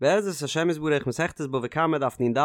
בעזרת השם יתברך מסכת בבא קמא דף נ"ד,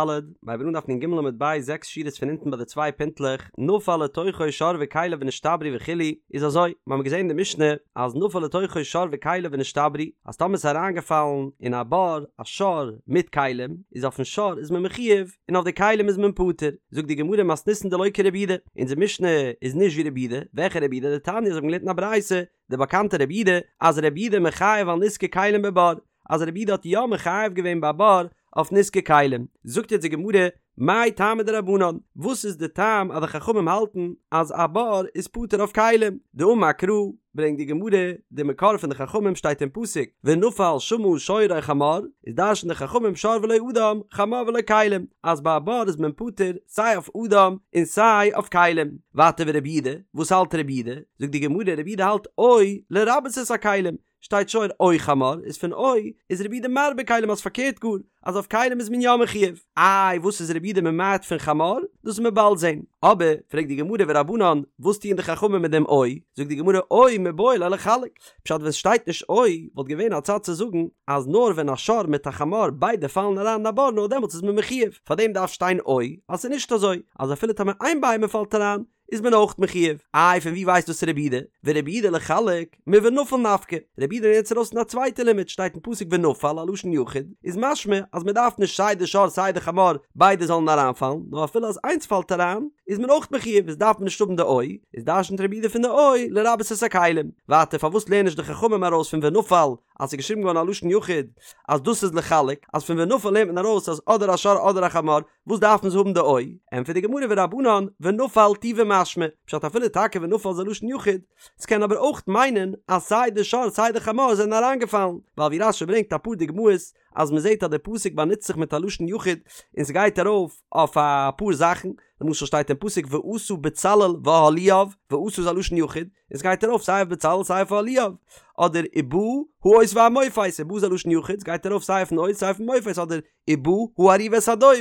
מ'הייבט אן דף נ"ג עמוד ב' זעקס שורות פון אונטן ביי די צוויי פינטלעך, נפל לתוכו שור וכליו ונשתברו וכו', איז אזוי, מ'האמיר געזען אין די משנה אז נפל לתוכו שור וכליו ונשתברו, אז טאמער ס'איז אריינגעפאלן אין א בור א שור מיט כלים, איז אויפן שור איז מען מחויב און אויף די כלים איז מען פטור, זאגט די גמרא מתניתין דלא כרבי יהודה, אונזער משנה איז נישט ווי רבי יהודה, וועלכע רבי יהודה? דתניא אזוי האט מען געלערנט אין א ברייתא, די באקאנטע רבי יהודה, אז רבי יהודה מחייב על נזקי כלים בבור, אז רבי יהודה האט יא מחייב געווען ביי בור אויף נזקי כלים, זאגט יעצט די גמרא, מאי טעמא דרבנן, וואס איז די טעם אז די חכמים האלטן אז א בור איז פטור אויף כלים? דאמר קרא, ברענגט די גמרא, די מקור פון די חכמים שטייט אין פסוק, ונפל שמה שור או חמור, איז דרש'ן די חכמים שור ולא אדם, חמור ולא כלים, אז ביי א בור איז מען פטור סיי אויף אדם און סיי אויף כלים. ווייטער ורבי יהודה, וואס האלט רבי יהודה? זאגט די גמרא, רבי יהודה האלט או לרבות את הכלים, שטייט שור או חמור, איז פון או איז רבי יהודה מרבה כלים אז פארקערט גאר, אז אויף כלים איז מען יא מחויב. איי וואס איז רבי יהודה ממעט פון חמור? דאס וועט מען באלד זען. אבער, פרעגט די גמרא ורבנן, וואס טוען די חכמים מיט דעם או? זאגט די גמרא או מיבעי ליה לחלק. פשט ווען סשטייט נישט או, וואלט געווען א צד צו זאגן אז נאר ווען א שור מיט א חמור ביידע פאלן אריין אין א בור נאר דעמאלטס איז מען מחויב. פארדעם דארף שטיין או אז ס'איז נישט אזוי אז אפילו טאמער איין בהמה פאלט אריין איז מען אויך מחויב. איי פון ווי ווייסט דאס רבי יהודה? ורבי יהודה לחלק מונפל נפקא. רבי יהודה לערנט עס ארויס פון א צווייטע לימוד, שטייט אין פסוק ונפל א לשון יחיד, איז משמע אז מען דארף נישט סיי די שור סיי די חמור ביידע זאלן אריינפאלן, נאר אפילו אז איינס פאלט אריין איז מען אויך מחויב, איז דארף מען נישט האבן די או, איז דרשנ'ט רבי יהודה פון די או לרבות את הכלים. ווייטער פארוואס לערנען נישט די חכמים ארויס פון ונפל אז ס'איז געשריבן געווארן א לשון יחיד אז דאס איז לחלק, אז פון ונפל לערנט מען ארויס אז אדער א שור אדער א חמור, וואס דארפן זיי האבן די או? ענטפערט די גמרא ורבנן ונפל טובא משמע, פשט אפילו טאקע ונפל איז א לשון יחיד, ס'קען אבער אויך מיינען אז סיי די שור סיי די חמור זענען אריינגעפאלן, ווייל ווי רש"י ברענגט אפאר דוגמאות אז מ'זעט אז די פסוק באנוצט זיך מיט א לשון יחיד און ס'גייט ארויף אויף אפאר זאכן, למשל שטייט אין פסוק ועשה בצלאל ואהליאב, ועשה איז א לשון יחיד, און ס'גייט ארויף סיי אויף בצלאל סיי אויף אהליאב, אדער ובא האות והמופת, ובא איז א לשון יחיד, ס'גייט ארויף סיי אויפן אות סיי אויפן מופת, אדער ובא הארי ואת הדוב,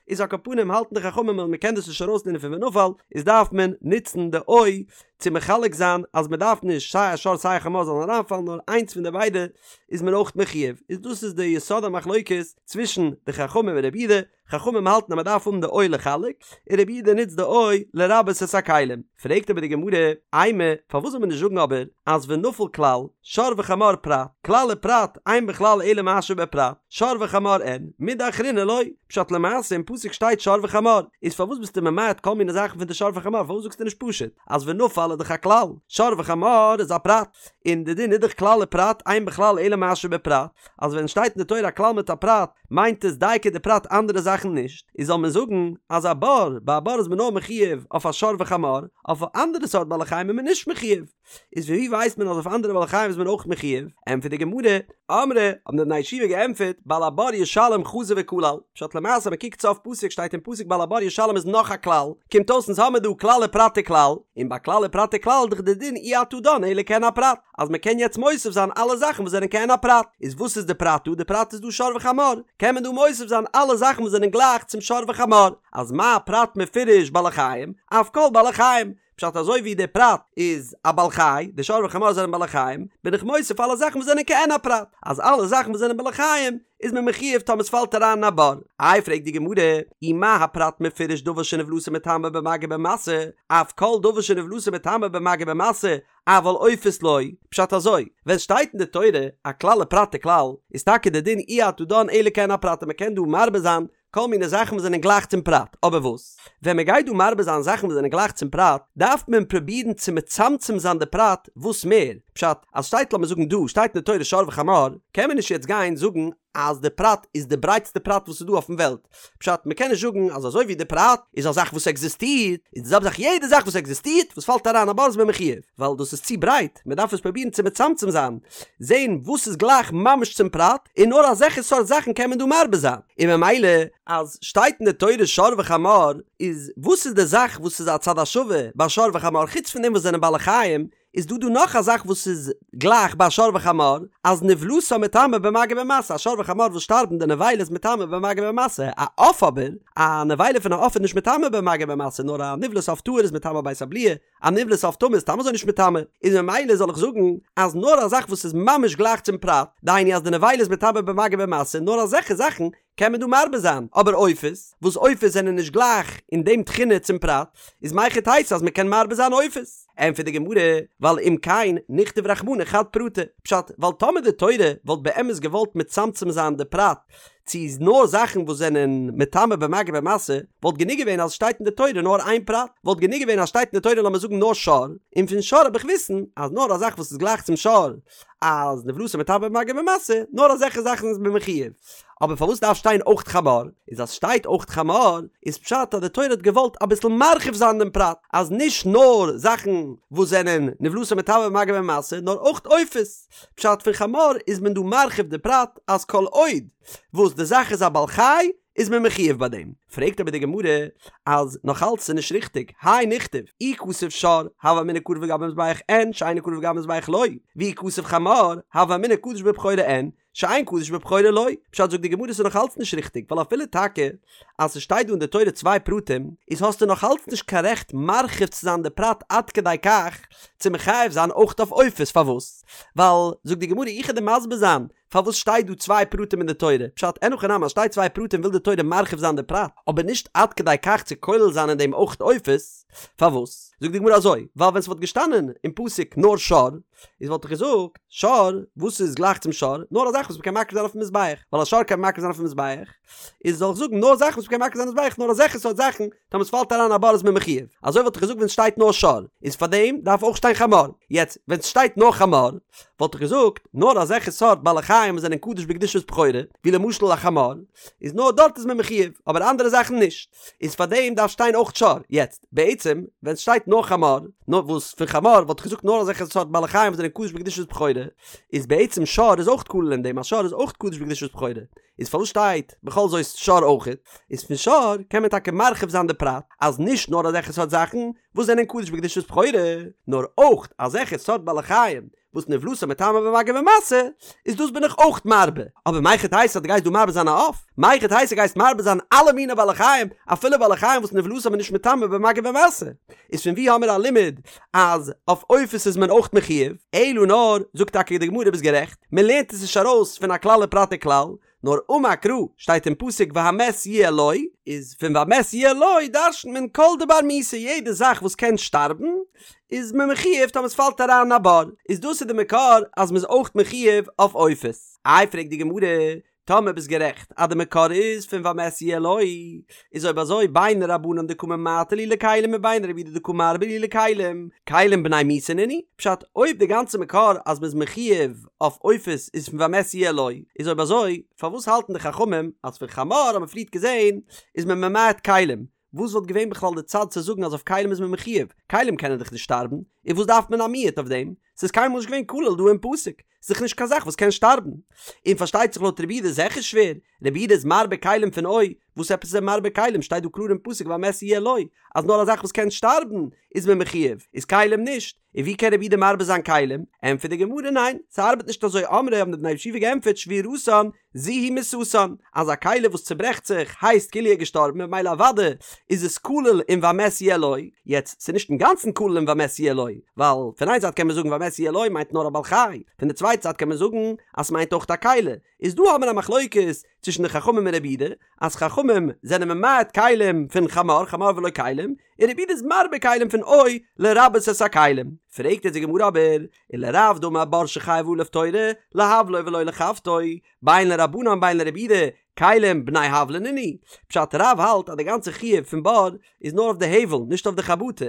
איז על כל פנים האלטן די חכמים אז מ'קען דאס נישט ארויסלערנען פון ונפל, איז דארף מען נוצן די או צו מחלק זיין אז מ'דארף נישט סיי א שור סיי א חמור זאלן אריינפאלן נאר איינס פון די ביידע איז מען אויך מחויב, איז דאס איז די יסוד המחלוקת צווישן די חכמים און רבי יהודה, חכמים האלטן אז מען דארף האבן די או לחלק, און רבי יהודה נוצט די או לרבות את הכלים. פרעגט אבער די גמרא, אימא, פארוואס זאל מען נישט זאגן אבער אז ונפל כלל, שור וחמור פרט, כלל ופרט, אין בכלל אלא מה שבפרט, שור וחמור אין, מידי אחרינא לא, פשט למעשה אין פסוק שטייט שור וחמור, איז פארוואס ביסטו ממעט כל מיני זאכן פון די שור וחמור, פארוואס זאגסטו נישט פשוט אז ונפל איז דאך א כלל, שור וחמור איז א פרט, און די דין איז דאך כלל ופרט, אין בכלל אלא מה שבפרט, אז ווען שטייט אין די תורה א כלל מיט א פרט, מיינט עס דייקא די פרט אנדערע זאכן נישט, איז זאל מען זאגן אז א בור, ביי א בור איז מען נאר מחויב אויף א שור וחמור, אויף א אנדערע סארט בעלי חיים איז מען נישט מחויב. איז פון ווי ווייסט מען אז אויף אנדערע בעלי חיים איז מען אויך מחויב? ענטפערט די גמרא, אמרי, האבן די בני ישיבה געענטפערט, בעל הבור ישלם חזר וכלל, פשט למעשה מען קוקט סוף פסוק שטייט אין פסוק בעל הבור ישלם איז נאך א כלל, קומט אויס אונז האמיר דא כלל ופרט וכלל, און ביי כלל ופרט וכלל איז דאך די דין אי אתה דן אלא כעין הפרט. אז מען קען יעצט מוסיף זיין אלע זאכן וואס זענען כעין הפרט, איז וואס איז די פרט דא? די פרט איז דא שור וחמור, קען מען דא מוסיף זיין אלע זאכן וואס זענען גלייך צום שור וחמור, אז מה הפרט מפורש בעלי חיים, אף כל בעלי חיים, פשט אזוי ווי די פרט איז א בעל חי, די שור וחמור זענען בעלי חיים, בין איך מוסיף אלע זאכן וואס זענען כעין הפרט, אז אלע זאכן וואס זענען בעלי חיים איז מען מחויב טאמער ס'פאלט אריין אין א בור. איי פרעגט די גמרא, אי מה הפרט מפורש דבר שנבלתו מטמא במגע ובמשא, אף כל דבר שנבלתו מטמא במגע ובמשא, אבל עופות לא, פשט אזוי, ווען שטייט אין די תורה א כלל ופרט וכלל, איז טאקע די דין אי אתה דן אלא כעין הפרט און מ'קען דא מרבה זיין כל מיני זאכן וואס זענען גלייך צום פרט, אבער וואס? ווען מ'גייט דא מרבה זיין זאכן וואס זענען גלייך צום פרט, דארף מען פרובירן צו מצמצם זיין די פרט וואס מער, פשט, אז שטייט לאמיר זאגן דא שטייט אין די תורה שור וחמור, קען מען נישט יעצט גיין זאגן אז די פרט איז די ברייטסטע פרט וואס איז דא אויפן וועלט, פשט, מ'קען נישט זאגן אז אזוי ווי די פרט איז א זאך וואס עקזיסטירט, איז די זעלבע זאך יעדע זאך וואס עקזיסטירט וואס פאלט אריין א בור איז מען מחויב, ווייל דאס איז צו ברייט, מ'דארף עס פרובירן צו מצמצם זיין, זען וואס איז גלייך ממש צום פרט, און נאר אזעלכע סארט זאכן קען מען דא מרבה זיין, און ממילא אז שטייט אין די תורה שור וחמור, איז וואס איז די זאך וואס איז א צד השווה ביי שור וחמור חוץ פון דעם וואס זענען בעלי חיים, איז דא דא נאך א זאך וואס איז גלייך ביי שור וחמור, אז נבלתן מטמא במגע ובמשא, א שור וחמור וואס שטארבן די נבילה איז מטמא במגע ובמשא, א עוף אבער, א נבילה פון א עוף איז נישט מטמא במגע ובמשא, נאר א נבלת עוף טהור איז מטמא בית הבליעה, א נבלת עוף טמא איז סתם אזוי נישט מטמא, איז ממילא זאל איך זאגן אז נאר א זאך וואס איז ממש גלייך צום פרט, דהיינו אז די נבילה איז מטמא במגע ובמשא, נאר אזעלכע זאכן קען מען דא מרבה זיין, אבער עופות, וואס עופות זענען נישט גלייך אין דעם תכונה צום פרט, איז מהיכי תיתי אז מען קען מרבה זיין עופות? ענטפערט די גמרא, ווייל אם כן נכתוב רחמנא חד פרטא, פשט, ווייל טאמער די תורה וואלט באמת געוואלט מצמצם זיין די פרט צו נאר זאכן וואס זענען מטמא במגע ובמשא, וואלט גענוג געווען אז עס שטייט אין די תורה נאר איין פרט, וואלט גענוג געווען אז שטייט אין די תורה לאמיר זאגן נאר שור, און פון שור האב איך וויסן אז נאר א זאך וואס איז גלייך צום שור, אז נבלתו מטמא במגע ובמשא, נאר אזעלכע זאכן איז מען מחויב. אבער פארוואס דארף שטיין אויך חמור? איז אז שטייט אויך חמור, איז פשט אז די תורה האט געוואלט אביסל מרחיב זיין דעם פרט, אז נישט נאר זאכן וואס זענען נבלתו מטמא במגע ובמשא, נאר אויך עופות. פשט פון חמור איז מען דא מרחיב די פרט אז כל עוד וואס די זאך איז א בעל חי איז מען מחויב ביי דעם. פרעגט אבער די גמרא אז נאך אלץ איז נישט ריכטיג, האי נכתוב, אי כתב שור, הוה אמינא קרב לגבי מזבח אין, שאינו קרב לגבי מזבח לא, ואי כתב חמור, הוה אמינא קדוש בבכורה אין, שאין קדוש בבכורה לא. פשט זאגט די גמרא ס'איז נאך אלץ נישט ריכטיג, ווייל אפילו טאקע אז ס'שטייט דא אין די תורה צוויי פרטים, איז האסטו נאך אלץ נישט קיין רעכט מרחיב צו זיין די פרט עד כדי כך צו מחייב זיין אויך אויף עופות, פארוואס? ווייל זאגט די גמרא איך וועל דיר מסביר זיין פארוואס שטייט דא צוויי פרטים אין די תורה? פשט, אין הכי נמי אז שטייט צוויי פרטים וויל די תורה מרחיב זיין די פרט, אבער נישט עד כדי כך צו כולל זיין אין דעם אויך עופות, פארוואס? זאגט די גמרא אזוי, ווייל ווען ס'וואלט געשטאנען אין פסוק נאר שור, איז וואלט איך געזאגט, שור, וואס איז גלייך צום שור? נאר א זאך וואס מ'קען מקריב זיין אויפן מזבח, ווייל א שור קען מען מקריב זיין אויפן מזבח, איז זאל איך זאגן נאר זאכן וואס מ'קען מקריב זיין אויפן מזבח, נאר אזעלכע סארט זאכן, טאמער ס'פאלט אריין א בור איז מען מחויב, אזוי וואלט איך געזאגט ווען ס'שטייט נאר שור, איז פארדעם דארף אויך שטיין חמור, יעצט ווען ס'שטייט נאר חמור, וואלט איך געזאגט, נאר אזעלכע סארט בעלי חיים וואס זענען קדוש בקדושת בכורה, ווי למשל א חמור, איז נאר דארט איז מען מחויב, אבער אנדערע זאכן נישט, איז פארדעם דארף שטיין אויך שור, יעצט בעצם ווען ס'שטייט נאר חמור, נאר וואס פון חמור וואלט איך געזאגט נאר אזעלכע סארט בעלי חיים וואס זענען קדוש בקדושת בכורה, איז בעצם שור איז אויך כולל אין דעם אז שור איז אויך קדוש בקדושת בכורה, איז פארוואס שטייט בכל זאת שור אויכעט? איז פון שור קען מען טאקע מרחיב זיין די פרט אז נישט נאר אזעלכע סארט זאכן וואס זענען קדוש בקדושת בכורה, נאר אויך אזעלכע סארט בעלי חיים וואס נבלתן מטמא במגע ובמשא, איז דאס בין איך אויך מרבה. אבער מהיכי תיתי אז דו גייסט דא מרבה זיין א עוף? מהיכי תיתי גייסט מרבה זיין אלע מיני בעלי חיים, אפילו בעלי חיים וואס נבלתן איז נישט מטמא במגע ובמשא? איז פון ווי האמיר א לימוד אז אויף עופות איז מען אויך מחויב? אלא נאר, זאגט טאקע די גמרא ביסט גערעכט, מען לערנט עס נישט ארויס פון א כלל ופרט וכלל, נאר אמר קרא, שטייט אין פסוק והמת יהיה לו, איז פון והמת יהיה לו דרש'נט מען כל דבר מיתה יעדע זאך וואס קען שטארבן איז מען מחויב טאמער עס פאלט אריין אין א בור, איז דאס איז די מקור אז מען איז אויך מחויב אויף עופות. איי פרעגט די גמרא, טאמער ביסט גערעכט אז די מקור איז פון והמת יהיה לו, איז אויב אזוי בין רבנן דקא ממעטי להו לכלים ובין רבי יהודה דקא מרבי להו לכלים, כלים בני מיתה נינהו? פשט, אויב די גאנצע מקור אז מ'איז מחויב אויף עופות איז פון והמת יהיה לו, איז אויב אזוי פארוואס האלטן די חכמים אז פון חמור האט מען פריערט געזען איז מען ממעט כלים? וואס וואלט געווען בכלל די צד צו זאגן אז אויף כלים איז מען מחויב? כלים קענען דאך נישט שטארבן, און וואס דארף מען א מיעוט אויף דעם? ס'איז קיינמאל נישט געווען כולל דא אין פסוק, ס'איז דאך נישט קיין זאך וואס קען שטארבן. און פארשטייט זיך לויט רבי יהודה איז זיכער שווער, רבי יהודה איז מרבה כלים פון או, וואס עפעס איז ער מרבה כלים? שטייט דא קלאר אין פסוק והמת יהיה לו, אז נאר א זאך וואס קען שטארבן איז מען מחויב, איז כלים נישט. און ווי קען רבי יהודה מרבה זיין כלים? ענטפערט די גמרא ניין, ס'ארבעט נישט אזוי אמרי האבן די בני ישיבה געענטפערט שבירתן זו היא מיתתן, אז א כלי וואס צוברעכט זיך הייסט כאילו ער איז געשטארבן ממילא אוודאי איז עס כולל אין והמת יהיה לו, יעצט ס'איז נישט אינגאנצן כולל אין והמת יהיה לו, ווייל פון איין זייט קען מען זאגן והמת יהיה לו מיינט נאר א בעל חי, פון די צווייטע זייט קען מען זאגן אז ס'מיינט אויך א כלי, איז דא האבן מיר א מחלוקת צווישן די חכמים און רבי יהודה, אז חכמים זענען ממעט כלים פון חמור, חמור ולא כלים, און רבי יהודה איז מרבה כלים פון או לרבות את הכלים. פרעגט אונז די גמרא אבער, ולרב דאמר בור שחייבה עליו תורה, להבלו ולא לחבטו, בין לרבנן בין לרבי יהודה, כלים בני הבלא נינהו. פשט רב האלט אז די גאנצע חיוב פון בור איז נאר אויף די הבל נישט אויף די חבטה.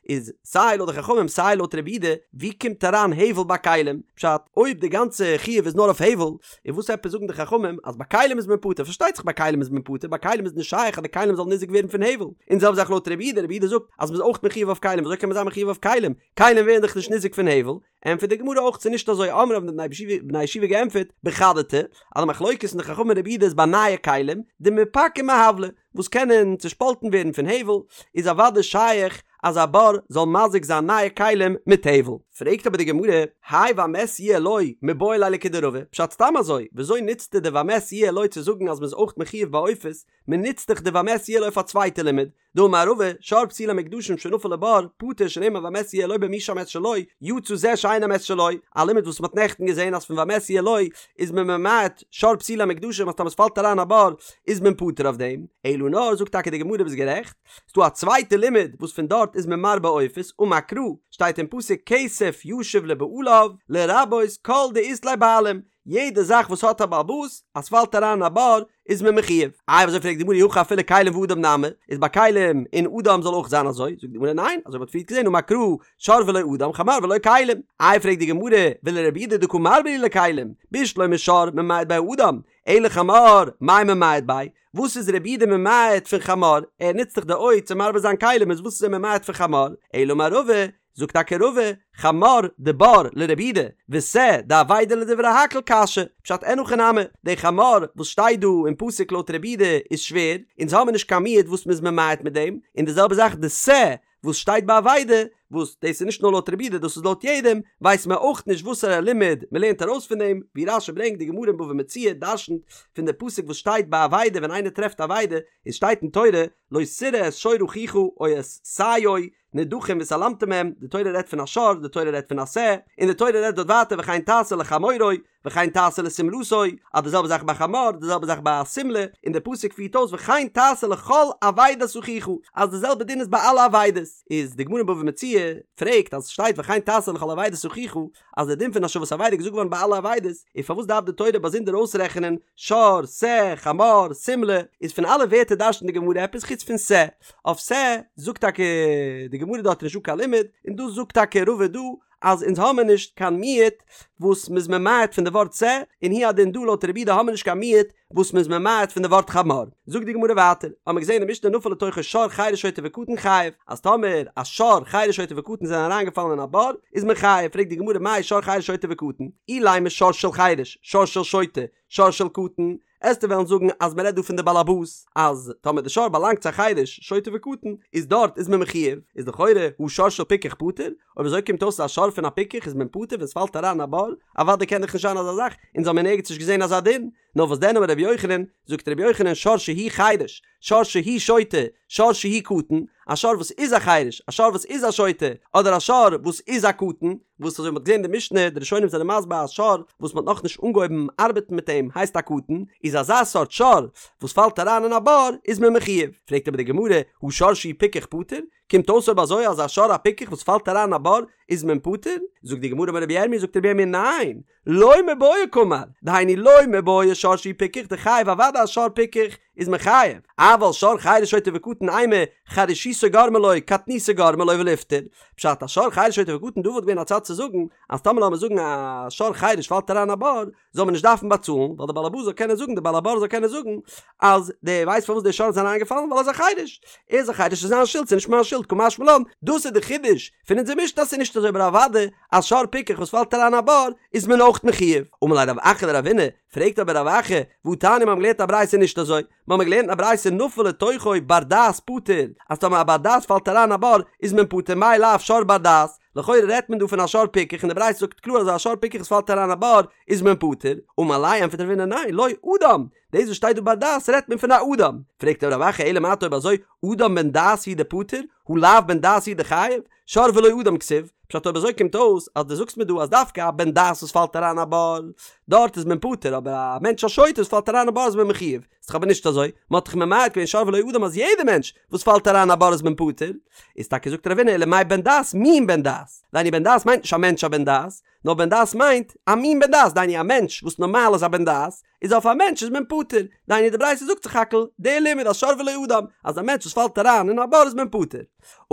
איז סיי לויט די חכמים סיי לויט רבי יהודה, ווי קומט אריין הבל ביי כלים? פשט, אויב די גאנצע חיוב איז נאר אויף הבל, איז וואס עפעס זאגן די חכמים אז ביי כלים איז מען פטור? פארשטייט זיך ביי כלים איז מען פטור, ביי כלים איז נישט שייך אז די כלים זאלן ניזוק ווערן פון הבל. און זעלבע זאך לויט רבי יהודה, רבי יהודה זאגט אז מ'איז אויך מחויב אויף כלים, וויאזוי קען מען זיין מחויב אויף כלים? כלים ווערן דאך נישט ניזוק פון הבל. ענטפערט די גמרא אויך ס'איז נישט אזוי אמרי האבן די בני ישיבה געענטפערט בחדתי אז די מחלוקת פון די חכמים און רבי יהודה איז ביי נייע כלים דמיפקעי מהבלא וואס קענען צושפאלטן ווערן פון הבל איז אוודאי שייך אז א בור זאל מזיק זיין נייע כלים מיט טבל. פרעגט אבער די גמרא, האי והמת יהיה לו מיבעי ליה לכדרבא, פשט סתם אזוי, וויאזוי נוצטו די והמת יהיה לו צו זאגן אז מ'איז אויך מחויב ביי עופות, מ'נוצט דאך די והמת יהיה לו אויף א צווייטע לימוד, דאמר רבא, שור פסולי המוקדשין שנפל לבור, פטור שנאמר והמת יהיה לו במי שהמת שלו, יצא זה שאין המת שלו, א לימוד וואס מ'האט נעכטן געזען אז פון והמת יהיה לו איז מען ממעט שור פסולי המוקדשים אז טאמער ס'פאלט אריין א בור איז מען פטור אויף דעם, אלא נאר זאגט טאקע די גמרא ביסט גערעכט, ס'דא א צווייטע לימוד וואס פון דארט איז מען מרבה עופות, אמר קרא, שטייט אין פסוק כסף ישיב לבעליו, לרבות כל דאית ליה בעלים, יעדע זאך וואס האט א בעל הבית, אז ס'פאלט אריין אין א בור, איז מען מחויב. איי אזוי פרעגט די גמרא אי הכי אפילו כלים ואדם נמי, איז ביי כלים און אדם זאל אויך זיין אזוי? זאגט די גמרא ניין, אזוי מ'האט פריערט געזען אמר קרא שור ולא אדם חמור ולא כלים. איי פרעגט די גמרא ולרבי יהודה דקא מרבה להו לכלים, בשלמא שור ממעט ביה אדם, אלא חמור מאי ממעט ביה, וואס איז רבי יהודה ממעט פון חמור? ער נוצט דאך די או צו מרבה זיין כלים איז וואס איז ער ממעט פון חמור? אלא אמר רבא, זאגט טאקע רבא, חמור דבור לרבי יהודה, ושה דאבידה לדברי הכל קשיא, פשט אין הכי נמי, די חמור וואס שטייט דא אין פסוק לויט רבי יהודה איז שווער, אונז האמיר נישט קיין מיעוט וואס מ'איז ממעט מיט דעם, און די זעלבע זאך די שה וואס שטייט ביי אבידה, וואס דאס איז נישט נאר לויט רבי יהודה דאס איז לויט יעדעם, ווייסט מען אויך נישט וואסערע לימוד מ'לערנט ארויס פון דעם, ווי רש"י ברענגט די גמרא אין בבא מציעא דרשנ'ט פון די פסוק וואס שטייט ביי אבידה ווען איינער טרעפט אבידה, עס שטייט אין תורה לא תראה את שור אחיך או את שיו נדחים והתעלמת מהם, די תורה רעדט פון א שור, די תורה רעדט פון א שה, און די תורה רעדט דארט ווייטער וכן תעשה לחמורו, וכן תעשה לשמלתו, אז די זעלבע זאך ביי חמור, די זעלבע זאך ביי א שמלה, און די פסוק פירט אויס וכן תעשה לכל אבידת אחיך, אז די זעלבע דין איז ביי אלע אבידות. איז די גמרא אין בבא מציעא פרעגט אז ס'שטייט וכן תעשה לכל אבידת אחיך, אז די דין פון השבת אבידה איז געזאגט געווארן ביי אלע אבידות, איז פארוואס דארף די תורה באזונדער אויסרעכענען שור, שה, חמור, שמלה, איז פון אלע ווערטער דרש'נט די גמרא עפעס חוץ פון שה, אויף שה זאגט טאקע די גמרא דארט איז נישטא קיין לימוד, און דאס זאגט טאקע רבא דא אז אונז האמיר נישט קיין מיעוט וואס מ'איז ממעט פון די ווארט שה, און הוא הדין דא לויט רבי יהודה האמיר נישט קיין מיעוט וואס מ'איז ממעט פון די ווארט חמור. זאגט די גמרא ווייטער, האמיר געזען אין משנה נפל לתוכו שור חרש שוטה וקטן חייב, אז טאמער א שור חרש שוטה וקטן זענען אריינגעפאלן אין א בור, איז מען חייב, פרעגט די גמרא מאי שור חרש שוטה וקטן, אילימא שור של חרש, שור של שוטה, שור של קטן, עסטו וועלן זאגן אז מ'רעדט דא פון די באלעבאס, אז טאמער די שור באלאנגט צו א חרש, שוטה וקטן, איז דארט איז מען מחויב, איז לכאורה הא שור של פיקח פטור, אויב אזוי קומט אויס אז א שור פון א פיקח איז מען פטור ווען ס'פאלט אריין אין א בור, אוודאי קען דאך נישט זיין אזא זאך, אונז האמיר נערגעץ נישט געזען אזא דין, נאר וואס דען אמר רבי יוחנן, זאגט רבי יוחנן שור שהוא חרש, שור שהוא שוטה, שור שהוא קטן, א שור וואס איז א חרש, א שור וואס איז א שוטה, אדער א שור וואס איז א קטן, וואס אזוי מ'האט געזען אין די משנה, די ראשונים זענען מסביר א שור וואס מ'האט נאכנישט אנגעהויבן ארבעטן מיט אים הייסט א קטן, איז אזא סארט שור וואס פאלט אריין אין א בור איז מען מחויב. פרעגט אבער די גמרא, הא שור שהוא פיקח פטור? קומט אויס אויב אזוי אז א שור א פיקח וואס פאלט אריין אין א בור איז מען פטור? זאגט די גמרא אמר רבי ירמי' זאגט רבי ירמי' ניין, לא מיבעיא קאמר, דהיינו לא מיבעיא שור שהוא פיקח דחייב אוודאי א שור פיקח איז מען חייב, אבל שור חרש שוטה וקטן אימא חרשותו גרמה לו קטנותו גרמה לו וליפטר, פשט א שור חרש שוטה וקטן דא וואלט געווען א צד צו זאגן אז טאמער לאמיר זאגן א שור חרש פאלט אריין א בור זאל מען נישט דארפן באצאלן ווייל די בעל הבית זאל קענען זאגן די בעל הבור זאל קענען זאגן אז דו ווייסט פארוואס די שור איז אריינגעפאלן ווייל ער איז א חרש ער איז א חרש איז זיין שולד ס'איז נישט מיין שולד קא משמע לן דאס איז די חידוש פון אונזער משנה אז ס'איז נישט אזוי אבער אוודאי א שור פיקח וואס פאלט אריין א בור איז מען אויך מחויב. אמר ליה רב אחא לרבינא, פרעגט אבער רב אחא, והתניא מ'האבן געלערנט א ברייתא נישט אזוי, מ'האבן געלערנט א ברייתא נפל לתוכו בר דעת פטור, אז טאמער א בר דעת פאלט אריין א בור איז מען פטור מאי לאו שור בר דעת, לכאורה רעדט מען דא פון א שור פיקח און די ברייתא זאגט קלאר אז א שור פיקח וואס פאלט אריין א בור איז מען פטור, אמר ליה ענטפערט רבינא ניין לא אדם, דאס וואס שטייט דא בר דעת רעדט מען פון א אדם, פרעגט אבער רב אחא אלא מעתה אויב אזוי אדם בן דעת הוא דפטור, הא לאו בן דעת הוא דחייב, שור ולא אדם כתיב, פשט אויב אזוי קומט אויס אז דו זאגסט מיר דא אז דווקא א בן דעת וואס פאלט אריין א בור דארט איז מען פטור אבער א מענטש א שוטה וואס פאלט אריין א בור איז מען מחויב, איז דאך אבער נישט אזוי, מען האט דאך ממעט געווען שור ולא אדם אז יעדע מענטש וואס פאלט אריין א בור איז מען פטור, איז טאקע זאגט רבינא אלא מאי בן דעת מין בן דעת, דהיינו בן דעת מיינט נישט א מענטש א בן דעת, נאר בן דעת מיינט א מין בן דעת דהיינו א מענטש וואס נארמאל איז א בן דעת, איז אויף א מענטש איז מען פטור, דהיינו די ברייתא זאגט סך הכל די לימוד אז שור ולא אדם, אז א מענטש וואס פאלט אריין אין א בור איז מען פטור.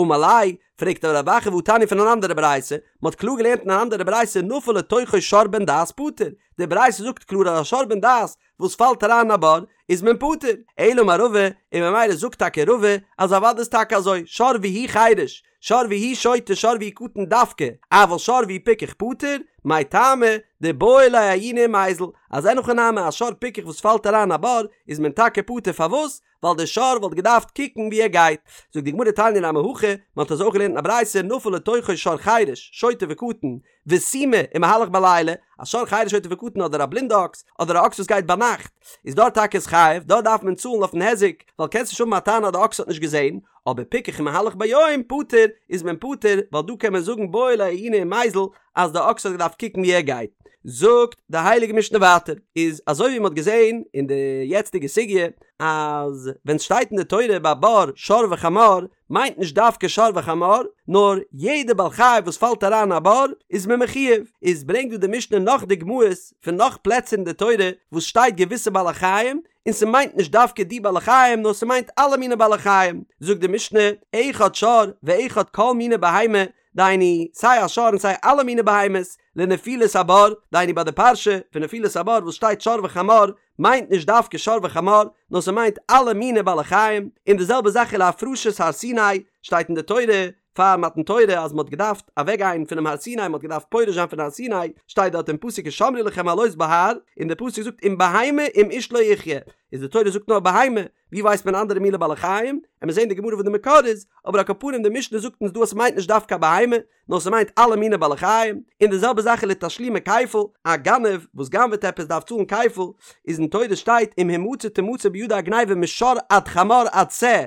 אמר ליה, פרעגט אבער רב אחא והתניא פון אן אנדערע ברייתא, מען האט קלאר געלערנט אין אן אנדערע ברייתא נפל לתוכו שור בן דעת פטור, די ברייתא זאגט קלאר אז א שור בן דעת וואס פאלט אריין אין א בור איז מען פטור, אלא אמר רבא, און ממילא זאגט טאקע רבא אז אוודאי איז טאקע אזוי, שור והוא חרש, שור והוא שוטה שור והוא קטן דווקא, אבל שור והוא פיקח פטור, מאי טעמא, דבעי ליה עיוני ומיזל, אז אין הכי נמי א שור פיקח וואס פאלט אריין א בור איז מען טאקע פטור פארוואס? ווייל די שור וואלט געדארפט קוקן ווי ער גייט. זאגט די גמרא תניא נמי הכי, מען האט אזוי אויך געלערנט אין א ברייתא נפל לתוכו שור חירש, שוטה וקטן, וסומא, ומהלך בלילה, א שור חירש שוטה וקטן אדער א בלינדע אקס, אדער א אקס וואס גייט ביינאכט, איז דארט טאקע איז חייב, דארט דארף מען צאלן אויפן היזק, ווייל קענסט נישט האבן א טענה אז די אקס האט נישט געזען, אבער פיקח ומהלך ביום פטור, איז מען פטור, ווייל דא קען מען זאגן בעי ליה עיוני ומיזל, אז די אקס האט געדארפט קוקן ווי ער גייט. זאגט די הייליגע משנה ווייטער, איז אזוי ווי מען האט געזען אין די יעצטיגע סוגיא, אז ווען סשטייט אין די תורה ביי בור שור וחמור, מיינט נישט דווקא שור וחמור, נאר יעדע בעל חי וואס פאלט אריין אין א בור איז מען מחויב, איז ברענגט דא די משנה נאך דוגמאות פון נאך פלעצער אין די תורה וואס שטייט געוויסע בעלי חיים, און ס'מיינט נישט דווקא די בעלי חיים נאר ס'מיינט אלע מיני בעלי חיים, זאגט די משנה, אחד שור ואחד כל מיני בהמה, דהיינו סיי א שור און סיי אלע מיני בהמות, לנפילת הבור, דהיינו ביי די פרשה פון נפילת הבור וואס שטייט שור וחמור, מיינט נישט דווקא שור וחמור, נאר ס'מיינט אלע מיני בעלי חיים, און די זעלבע זאך ולהפרשת הר סיני, שטייט אין די תורה פאר מתן תורה אז מ'האט געדארפט אוועקגיין פונעם הר סיני, מ'האט געדארפט פורש זיין פון הר סיני, שטייט דארט אין פסוק השמרו לכם עלות בהר, און די פסוק זאגט אם בהמה אם איש לא יחיה, איז די תורה זאגט נאר בהמה, ווי ווייסט מען אנדערע מיני בעלי חיים? עמיר זעהן די גמרא וואס די מקור איז, אבער על כל פנים די משנה זאגט אונז דא אז ס'מיינט נישט דווקא א בהמה, נאר ס'מיינט אלע מיני בעלי חיים, און די זעלבע זאך איז לתשלומי כפל, א גנב וואס גנב'עט עפעס דארף צאלן כפל, איז אין תורה שטייט אם המצא תמצא בידו הגניבה משור עד חמור עד שה,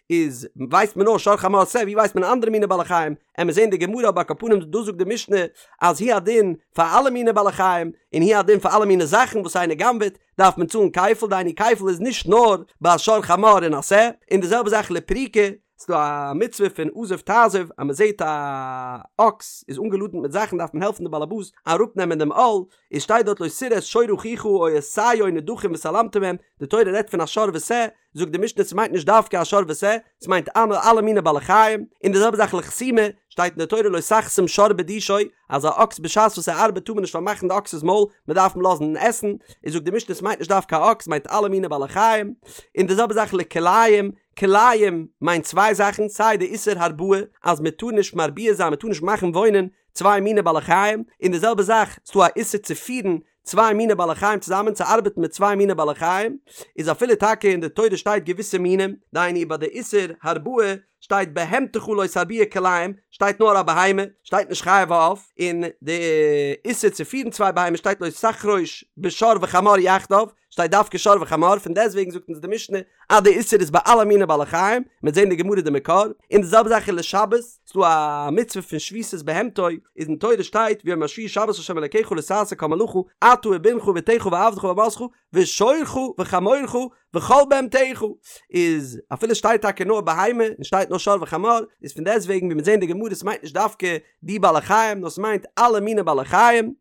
איז ווייסט מען נאר שור חמור שה, ווי ווייסט מען אנדערע מיני בעלי חיים, עמיר זעהן די גמרא אבער על כל פנים דא זאגט די משנה אז הוא הדין פאר אלע מיני בעלי חיים, און הוא הדין פאר אלע מיני זאכן וואס איינער גנב'עט, דארף מען צאלן כפל, דהיינו כפל איז נישט נאר ביי שור חמור און א שה, און די זעלבע זאך לפריקה, ס'דא א מצוה פון עזוב תעזוב אז מ'זעט א אקס איז אנגעלאדענט מיט זאכן דארף מען העלפן די באלעבאס אראפנעמען דעם עול, איז שטייט דארט לא תראה את שור אחיך או את שיו נדחים והתעלמת מהם, די תורה רעדט פון א שור ושה, זאגט די משנה ס'מיינט נישט דווקא א שור ושה, ס'מיינט אלע מיני בעלי חיים, און די זעלבע זאך לחסימה, שטייט אין די תורה לא תחסום שור בדישו, אז א אקס בשעת וואס ער ארבעט טאר מען נישט פארמאכן די אקס'ס מויל, מען דארף אים לאזן עסן, איז זאגט די משנה ס'מיינט נישט דווקא א אקס, ס'מיינט אלע מיני בעלי חיים, און די זעלבע זאך לכלאים, כלאים מיינט צוויי זאכן, סיי די איסור הרבעה אז מען טאר נישט מרביע זיין מען טאר נישט מאכן וואוינען צוויי מיני בעלי חיים, און די זעלבע זאך ס'דא א איסור צו פירן צוויי מיני בעלי חיים צוזאמען צו ארבעטן מיט צוויי מיני בעלי חיים, איז אפילו טאקע אין די תורה שטייט געוויסע מינים, דהיינו ביי די איסור הרבעה שטייט בהמתך לא תרביע כלאים, שטייט נאר א בהמה, שטייט נישט חיה ועוף, און די איסור צו פירן צוויי בהמות שטייט לא תחרוש בשור וחמור יחדיו, שטייט דווקא שור וחמור, פון דעסטוועגן זאגט אונז די משנה אז די איסור איז ביי אלע מיני בעלי חיים, מ'וועט זען די גמרא די מקור, און די זעלבע זאך איז לשבת, ס'דא א מצוה פון שביתת בהמתו, איז אין תורה שטייט ויום השביעי שבת לה' אלקיך לא תעשה כל מלאכה אתה ובנך ובתך ועבדך ואמתך ושורך וחמורך וכל בהמתך, איז אפילו שטייט טאקע נאר בהמה און שטייט נאר שור וחמור, איז פון דעסטוועגן ווי מ'וועט זען די גמרא ס'מיינט נישט דווקא די בעלי חיים נאר ס'מיינט אלע מיני בעלי חיים,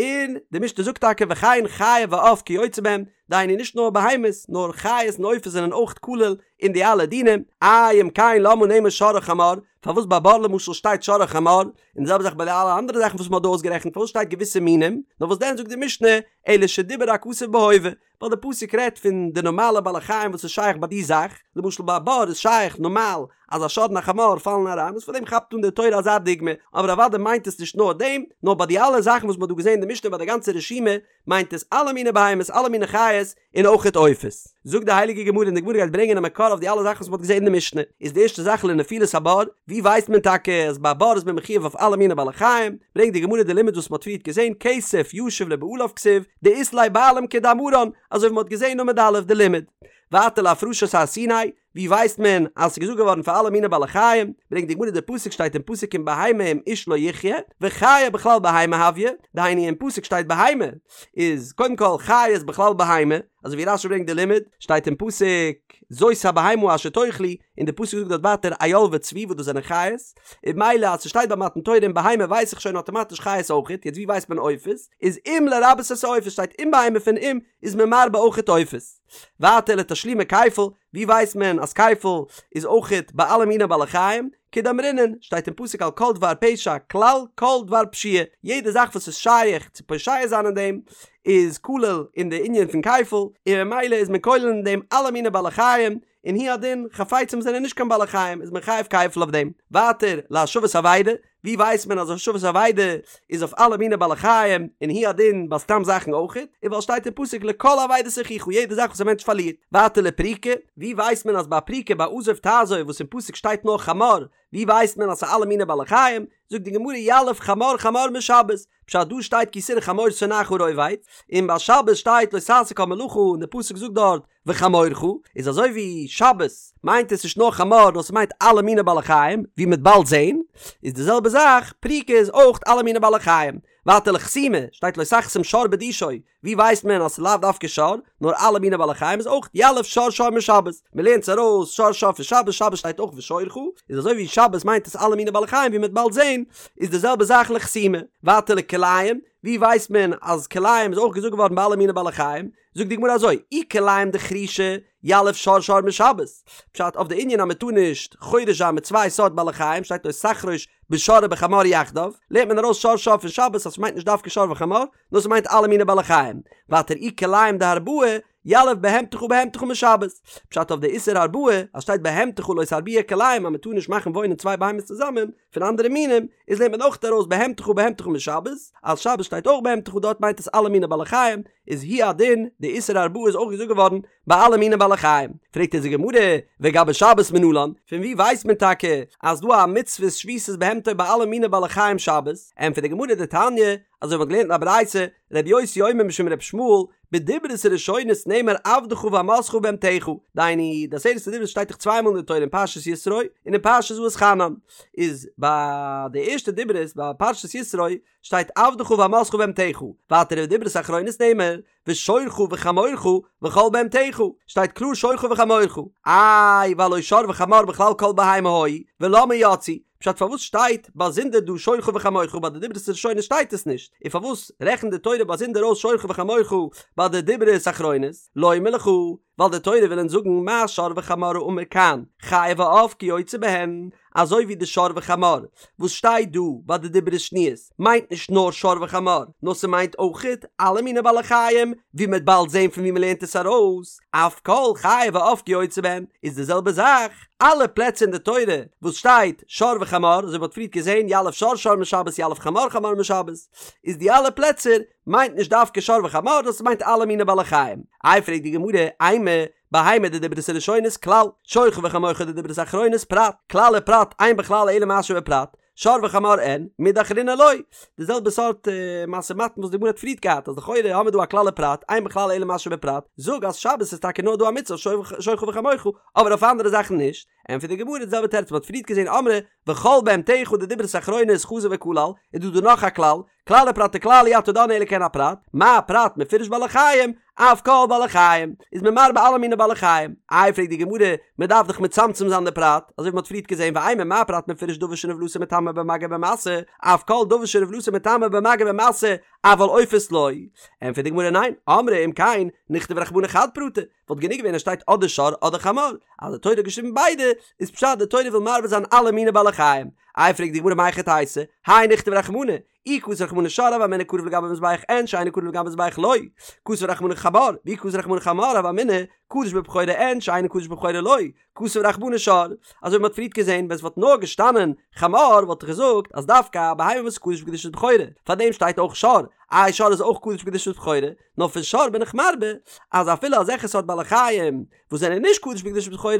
און די משנה זאגט טאקע וכן חיה ועוף כיוצא בהם, דהיינו נישט נאר בהמות נאר חיות און עופות זענען אויך כלול אין די אלע דינים, איי אם כן למה נאמר שור וחמור, פארוואס ביי בור למשל שטייט שור וחמור, און די זעלבע זאך ביי די אלע אנדערע זאכן וואס מ'האט דא אויסגערעכנט פארוואס שטייט געוויסע מינים, נאר וואס דען זאגט די משנה אלא שדיבר הכתוב בהווה, ווייל די פסוק רעדט פון די נארמאלע בעלי חיים וואס איז שייך ביי די זאך, למשל ביי א בור איז שייך נארמאל אז א שור און א חמור פאלן אריין, איז פאר דעם כאפט אן די תורה אזא דוגמא, אבער אוודאי מיינט עס נישט נאר דעם, נאר ביי די אלע זאכן וואס מען האט דא געזען אין די משנה ביי די גאנצע רשימה, מיינט עס אלע מיני בהמות, אלע מיני חיות, און אויכעט עופות. זאגט די הייליגע גמרא און די גמרא גייט ברענגען א מקור אויף די אלע זאכן וואס מען האט געזען אין די משנה, איז די ערשטע זאך לנפילת הבור, ווי ווייסט מען טאקע אז ביי א בור איז מען מחויב אויף אלע מיני בעלי חיים, ברענגט די גמרא די לימוד וואס מען האט פריערט געזען, כסף ישיב לבעליו כתיב, דאית ליה בעלים כדאמרן, אזוי ווי מען האט געזען אין עמוד א' די לימוד. ווייטער להפרשת הר סיני, ווי ווייסט מען אז ס'איז געזאגט געווארן פאר אלע מיני בעלי חיים, ברענגט די גמרא די פסוק שטייט אין פסוק אם בהמה אם איש לא יחיה, וחיה בכלל בהמה הויא, דהיינו אין פסוק שטייט בהמה, איז קודם כל חיה איז בכלל בהמה, אזוי ווי רשי ברענגט די לימוד, שטייט אין פסוק זאת הבהמה אשר תאכלו, און די פסוק זאגט דארט ווייטער איל וצבי וואס דאס זענען חיות, און ממילא אז ס'שטייט ביי מתן תורה אם בהמה ווייס איך שוין אטאמאטיש חיות אויכעט, יעצט ווי ווייסט מען עופות, איז אם לרבות את העופות שטייט אם בהמה פון אם איז מען מרבה אויכעט עופות. ווייטער לתשלומי כפל, ווי ווייסט מען אז כפל איז אויכעט ביי אלע מיני בעלי חיים? כדאמרינן, שטייט אין פסוק על כל דבר פשע כלל כל דבר פשיעה, יעדע זאך וואס איז שייך צו פושע זיין אין דעם איז כולל אין די ענין פון כפל, און ממילא איז מען כולל אין דעם אלע מיני בעלי חיים, און הוא הדין, חפצים זענען נישט קיין בעלי חיים איז מען חייב כפל אויף דעם. ווייטער, להשבת אבידה, ווי ווייסט מען אז השבת אבידה איז אויף אלע מיני בעלי חיים, און הוא הדין ביי סתם זאכן אויכעט, איז ווייל שטייט אין פסוק לכל אבידת אחיך יעדע זאך וואס א מענטש פארלירט. ווייטער לפריקה, ווי ווייסט מען אז ביי פריקה ביי עזוב תעזוב וואס אין פסוק שטייט נאר חמור, ווי ווייסט מען אז ס'איז אלע מיני בעלי חיים, זאגט די גמרא יליף חמור חמור משבת, פשט דא שטייט כי תראה חמור שונאך רובץ, און ביי שבת שטייט לא תעשה כל מלאכה און די פסוק זאגט דארט וחמורך, איז אזוי ווי שבת מיינט עס נישט נאר חמור נאר ס'מיינט אלע מיני בעלי חיים, ווי מ'וועט באלד זעהן, איז די זעלבע זאך פריקה איז אויך אלע מיני בעלי חיים. ווייטער לחסימה, שטייט לא תחסום שור בדישו, ווי ווייסט מען אז ס'איז לאו דווקא שור, נאר אלע מיני בעלי חיים איז אויך יליף שור שור משבת, מ'לערנט עס ארויס שור שור פון שבת, שבת שטייט אויך ושורך, איז אזוי ווי שבת מיינט עס אלע מיני בעלי חיים ווי מ'וועט באלד זעהן, איז די זעלבע זאך לחסימה. ווייטער לכלאים, ווי ווייסט מען אז כלאים איז אויך געזאגט געווארן ביי אלע מיני בעלי חיים, זאגט די גמרא אזוי, אי כלאים דחרישה, יליף שור שור משבת, פשט אויף די ענין אז מען טאר נישט חורש זיין מיט צוויי סארט בעלי חיים שטייט לא תחרוש בשור ובחמור יחדיו, לערנט מען ארויס שור שור פון שבת אז ס'מיינט נישט דווקא שור וחמור, נאר ס'מיינט אלע מיני בעלי חיים. ווייטער אי כלאים דהרבעה, יליף בהמתך בהמתך משבת, פשט אויף די איסור הרבעה אז שטייט בהמתך לא תרביע כלאים אז מען טאר נישט מאכן וואוינען צוויי בהמות צוזאמען, פון אנדערע מינים, איז לערנט מען אויך ארויס בהמתך בהמתך משבת, אז שבת שטייט אויך בהמתך דארט מיינט עס אלע מיני בעלי חיים, איז הוא הדין, די איסור הרבעה איז אויך געזאגט געווארן ביי אלע מיני בעלי חיים. פרעגט אונז די גמרא, וגבי שבת מנלן, פון וואו ווייסט מען טאקע אז דא א מצוות שביתת בהמתו ביי אלע מיני בעלי חיים שבת? ענטפערט די גמרא דתניא, אזוי ווי מ'האט געלערנט אין א ברייתא, רבי יוסי אומר משום רבי ישמעאל, בדברות הראשונות נאמר עבדך ואמתך ובהמתך, דהיינו, די עשרת הדיברות שטייט דאך צוויי מאל אין די תורה אין פרשת יתרו און אין פרשת ואתחנן, איז ביי די ערשטע דיברות ביי פרשת יתרו שטייט עבדך ואמתך ובהמתך, ווייטער ובדברות אחרונות נאמר ושורך וחמורך וכל בהמתך, שטייט קלאר שורך וחמורך, איי והלא שור וחמור בכלל כל בהמה היו, ולמה יצאו, פשט פארוואס שטייט באזונדער דא שורך וחמורך ביי די דיברות הראשונות שטייט עס נישט, און פארוואס רעכנט די תורה באזונדער אויס שורך וחמורך ביי די דיברות אחרונות, לומר לך, ווייל די תורה וויל אונז זאגן מה שור וחמור האמור כאן, חיה ועוף כיוצא בהן, אזוי ווי די שור וחמור וואס שטייט דא ביי די דיברות שניות מיינט נישט נאר שור וחמור נאר ס'מיינט אויכעט אלע מיני בעלי חיים, ווי מ'וועט באלד זען פון ווי מ'לערנט עס ארויס, אף כל חיה ועוף כיוצא בהן, איז די זעלבע זאך אלע פלעצער אין די תורה וואס שטייט שור וחמור, אזוי ווי מ'האט פריערט געזען יליף שור שור משבת יליף חמור חמור משבת, איז די אלע פלעצער מיינט נישט דווקא שור וחמור נאר ס'מיינט אלע מיני בעלי חיים. איי פרעגט די גמרא, אימא, בהמה דדיברות הראשונות כלל, שורך וחמורך דדיברות אחרונות פרט, כלל ופרט אין בכלל אלא מה שבפרט, שור וחמור אין, מידי אחרינא לא. די זעלבע סארט משא ומתן וואס די גמרא האט פריערט געהאט אז לכאורה האמיר דא א כלל ופרט, אין בכלל אלא מה שבפרט, זאג אז שבת איז טאקע נאר דא א מצוה שורך וחמורך, אבער אויף אנדערע זאכן נישט. ענטפערט די גמרא די זעלבע תירוץ מען האט פריערט געזען אמרי וכל בהמתך דדיברות אחרונות חזר וכלל, איז דא דא נאך א כלל, כלל ופרט וכלל אי אתה דן אלא כעין הפרט, מה הפרט מפורש בעלי חיים, אף כל בעלי חיים, איז מען מרבה אלע מיני בעלי חיים. איי פרעגט די גמרא, מען דארף דאך מצמצם זיין די פרט, אזוי ווי מען האט פריערט געזען ואימא מה הפרט מפורש דבר שנבלתו מטמא במגע ובמשא, אף כל דבר שנבלתו מטמא במגע ובמשא, אבל עופות לא. ענטפערט די גמרא ניין, אמרי אם כן, נכתוב רחמנא חד פרטא, וואלט גענוג געווען אז שטייט אדער שור אדער חמור, אז די תורה האט געשריבן ביידע, איז פשט די תורה וויל מרבה זיין אלע מיני בעלי חיים. איי פרעגט די גמרא מהיכי תיתי, האי נכתוב רחמנא, אי כתב רחמנא שור הוה אמינא קרב לגבי מזבח אין שאינו קרב לגבי מזבח לא, כתב רחמנא חמור, ואי כתב רחמנא חמור הוה אמינא קדוש בבכורה אין שאינו קדוש בבכורה לא, כתב רחמנא שור, אזוי ווי מ'האט פריערט געזען ווען ס'וואלט נאר געשטאנען חמור וואלט איך געזאגט אז דווקא א בהמה וואס איז קדוש בקדושת בכורה, פארדעם שטייט אויך שור, איי שור איז אויך קדוש בקדושת בכורה, נאר פון שור בין איך מרבה אז אפילו אזעלכע סארט בעלי חיים וואס זענען נישט קדוש בקדושת בכורה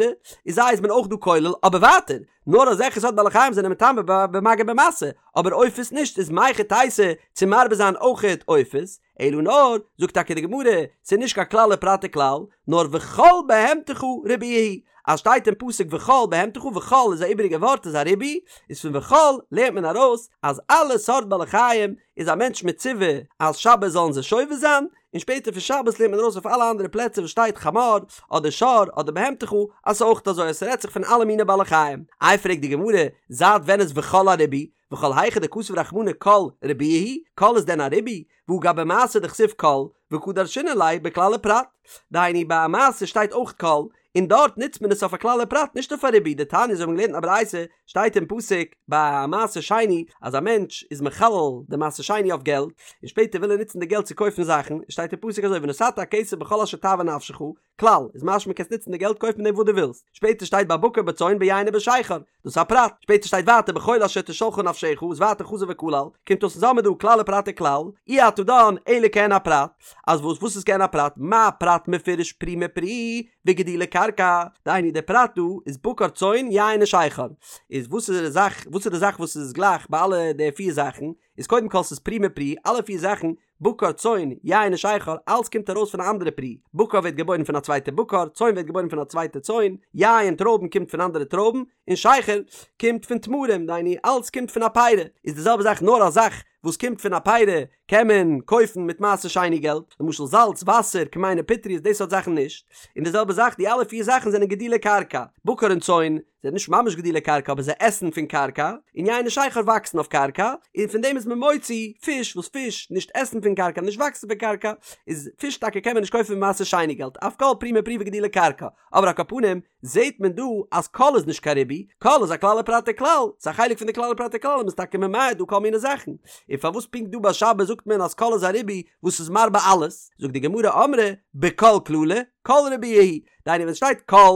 איז זיי איז מען אויך דא כולל, אבער ווייטער נאר אזעלכע סארט בעלי חיים זענען מטמא במגע ובמשא, אבער עופות נישט, איז מהיכי תיתי צו מרבה זיין אויכעט עופות, אלא נאר, זאגט טאקע די גמרא, ס'איז נישט קיין כלל ופרט וכלל, נאר וכל בהמתך ריבויא הוא, אז שטייט אין פסוק וכל בהמתך, וכל איז א איבעריגע ווארט איז א ריבוי, איז פון וכל לערנט מען ארויס אז אלע סארט בעלי חיים איז א מענטש מצווה אז שבת זאלן זיי שובת זיין, און שפעטער פון שבת לערנט מען ארויס אויף אלע אנדערע פלעצער וואס שטייט חמור אדער שור אדער בהמתך אז ס'איז אויך אזוי אז ס'רעדט זיך פון אלע מיני בעלי חיים. איי פרעגט די גמרא, זייט ווען איז וכל א ריבוי? וכל היכא דכתב רחמנא כל ריבויא הוא, כל איז דען א ריבוי? והא גבי מעשר דכתיב כל, וקא דרשינן ליה בכלל ופרט. דהיינו ביי מעשר שטייט אויך כל, און דארט נוצט מען עס אויף א כלל ופרט נישט אויף א ריבוי, דתניא אזוי האבן מיר געלערנט אין א ברייתא, שטייט אין פסוק ביי מעשר שני אז א מענטש איז מחלל די מעשר שני אויף געלט, און שפעטער וויל ער נוצן די געלט צו קויפן זאכן, שטייט אין פסוק אזוי ונתת הכסף בכל אשר תאוה נפשך, כלל, איז משמע קענסט נוצן די געלט קויפן מיט דעם וואס דו ווילסט. שפעטער שטייט בבקר בצאן ביין ובשכר, דאס איז א פרט. שפעטער שטייט ווייטער בכל אשר תשאלך נפשך, איז ווייטער חזר וכלל, קומט אויס אונז האמיר דא כלל ופרט וכלל, אי אתה דן אלא כעין הפרט, אז וואס וואס איז כעין הפרט, מה פרט מפורש פרי מפרי וגידולי קרקע, דהיינו דער פרט דא איז בקר צאן יין ושכר, איז וואס איז די זאך וואס איז די זאך וואס איז גלייך ביי אלע די פיר זאכן, איז קודם כל ס'איז פרי מפרי, אלע פיר זאכן בקר, צאן, יין און שכר, אלץ קומט ארויס פון א אנדערע פרי, בקר ווערט געבוירן פון א צווייטע בקר, צאן ווערט געבוירן פון א צווייטע צאן, יין, טרויבן, קומט פון אנדערע טרויבן, און שכר קומט פון תמרים, דהיינו אלץ קומט פון א פירי, איז די זעלבע זאך נאר א זאך וואס קומט פון א פירי קען מען קויפן מיט מעשר שני געלט, למשל זאלץ, וואסער, כמהין ופטריות די סארט זאכן נישט, און די זעלבע זאך די אלע פיר זאכן זענען גידולי קרקע, בקר און צאן, זענען נישט ממש גידולי קרקע אבער זיי עסן פון קרקע, און יין און שכר וואקסן אויף קרקע, און פון דעם איז מען מוציא פיש, וואס פיש נישט עסן פון קרקע נישט וואקסן פון קרקע, איז פיש טאקע קען מען נישט קויפן מיט מעשר שני געלט, אף כל פרי מפרי וגידולי קרקע, אבער על כל פנים זעהט מען דא אז כל איז נישט קיין ריבוי, כל איז א כלל ופרט וכלל, ס'איז א חלק פון די כלל ופרט וכלל און מ'איז טאקע ממעט דא כל מיני זאכן, און פארוואס פונקט דא ביי שבת זאגט מען אז כל איז א ריבוי וואס איז מרבה אלעס, זאגט די גמרא אמרי בכל כללא, כל ריבויא הוא, דהיינו ווען שטייט כל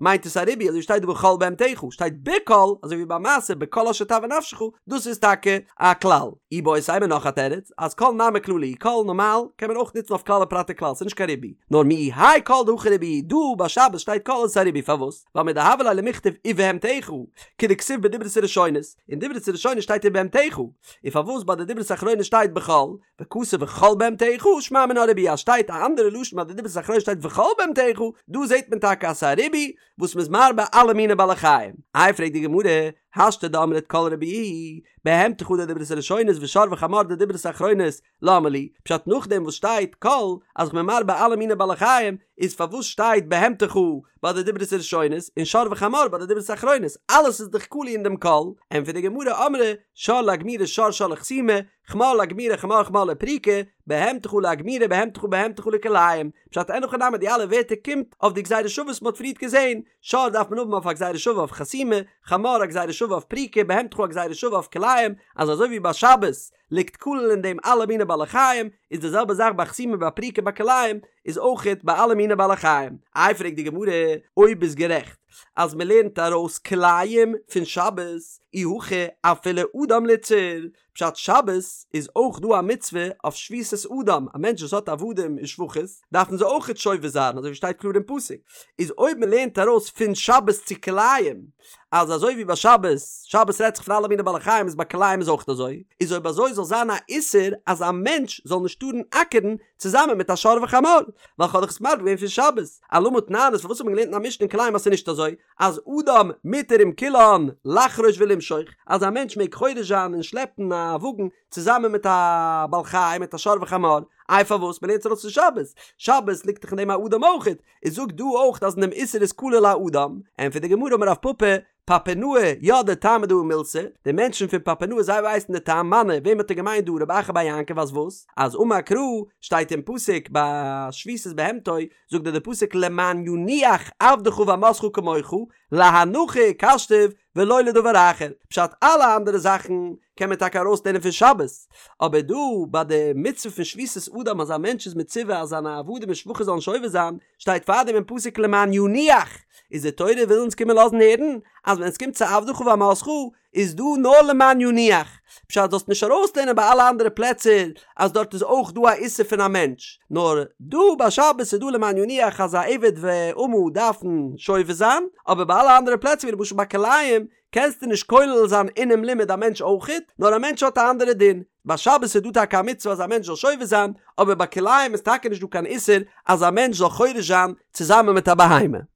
מיינט עס א ריבוי אזוי ווי שטייט דא וכל בהמתך שטייט בכל אזוי ווי ביי מעשר בכל אשר תאוה נפשך דאס איז טאקע א כלל. איבעית אימא נאך א תירוץ אז כל נמי כללא הוא כל נארמאל קען מען אויך נוצן אויף כלל ופרט וכלל ס'איז נישט קיין ריבוי נאר מיהו האי כל דהכא ריבוי דא ביי שבת שטייט כל איז עס א ריבוי פארוואס ווייל מדהוה ליה למכתב ובהמתך כדכתיב בדברות הראשונות אין דברות הראשונות שטייט ובהמתך און פארוואס ביי די דברות אחרונות שטייט בכל וכתב וכל בהמתך שמע מינה ריבוי אז שטייט א אנדערע לשון ביי די דברות אחרונות שטייט וכל בהמתך דא זעהט מען טאקע אז ס'איז א ריבוי וואס מ'איז מרבה אלע מיני בעלי חיים. איי פרעגט די גמרא, השתא דאמרת כל ריבוי בהמתך דדברות הראשונות ושור וחמור דדברות אחרונות למה לי, פשט נאכדעם וואס שטייט כל אז כ'בין מרבה אלע מיני בעלי חיים איז פארוואס שטייט בהמתך ביי די דברות הראשונות און שור וחמור ביי די דברות אחרונות אלעס איז דאך כלול אין דעם כל, ענטפערט די גמרא אמרי שור לאגמורי שור שור לחסימה חמור לאגמורי חמור חמור לפריקה, בהמתך לאגמורי בהמתך בהמתך לכלאים, פשט אין הכי נמי די אלע ווערטער קומט אויף די גזירה שווה וואס מ'האט פריערט געזען, שור דארף מען האבן אויף א גזירה שווה אויף חסימה, חמור א גזירה שווה אויף פריקה, בהמתך א גזירה שווה אויף כלאים, אז אזוי ווי ביי שבת ליגט כלול אין דעם אלע מיני בעלי חיים, איז די זעלבע זאך ביי חסימה ביי פריקה ביי כלאים, איז אויכעט ביי אלע מיני בעלי חיים. איי פרעגט די גמרא, אויב ביסט גערעכט אז מ'לערנט ארויס כלאים פון שבת, אי הכי אפילו אדם ליתסר, פשט שבת איז אויך דא א מצוה אויף שביתת אדם, א מענטש וואס האט עבדים און שפחות דארפן זיי אויכעט שובת זיין אזוי ווי שטייט קלאר אין פסוק, איז אויב מען לערנט ארויס פון שבת צו כלאים אז אזוי ווי ביי שבת, שבת רעדט זיך פון אלע מיני בעלי חיים איז ביי כלאים איז אויך אזוי, איז אויב אזוי זאל זיין א איסור אז א מענטש זאל נישט טארן אקערן צוזאמען מיט א שור וחמור, ווייל כ'האב דאך עס מרבה געווען פון שבת, אלמה תנן איז פארוואס האט מען געלערנט אין א משנה אין כלאים אז ס'איז נישט אזוי, אז אדם מותר עם כולן לחרוש ולמשוך, אז א מענטש מעג חורש זיין און שלעפן א וואגן צוזאמען מיט א בעל חי מיט א שור וחמור, איי פארוואס? מ'לערנט עס ארויס פון שבת, שבת ליגט דאך אין דעם א אדם אויכעט, איז זאג דא אויך אז אין דעם איסור איז כולל א אדם, ענטפערט די גמרא אמר רב פפא, פפונאי ידעי טעמא דהא מילתא, די מענטשן פון פפונאי זיי ווייסן די טעם, מני, וועם האט ער געמיינט דא רב אחא בר יעקב אז וואס? אז אמר קרא, שטייט אין פסוק ביי שביתת בהמתו, זאגט דיר די פסוק למען ינוח עבדך ואמתך כמוך, להנחה הוקשתיו ולא לדבר אחר, פשט אלע אנדערע זאכן קען מען טאקע ארויסלערנען פון שבת, אבער דא ביי די מצוה פון שביתת אדם אז א מענטש איז מצווה אז זיינע עבדים און שפחות זאלן שובת זיין, שטייט פארדעם אין פסוק למען ינוח, איז די תורה וויל אונז קומען לאזן הערן אז ווען עס קומט צו עבדך ואמתך איז דא נאר למען ינוח, פשט זאלסט נישט ארויסלערנען ביי אלע אנדערע פלעצער אז דארט איז אויך דא א איסור פון א מענטש, נאר דא ביי שבת איז דא למען ינוח אז א עבד ואמה דארפן שובת זיין, אבער ביי אלע אנדערע פלעצער ווי למשל ביי כלאים קענסטו נישט כולל זיין אינעם לימוד א מענטש אויכעט, נאר א מענטש האט א אנדערע דין, ביי שבת איז דא טאקע א מצוה אז א מענטש זאל שובת זיין, אבער ביי כלאים איז טאקע נישט דא קיין איסור אז א מענטש זאל חורש זיין צוזאמען מיט א בהמה.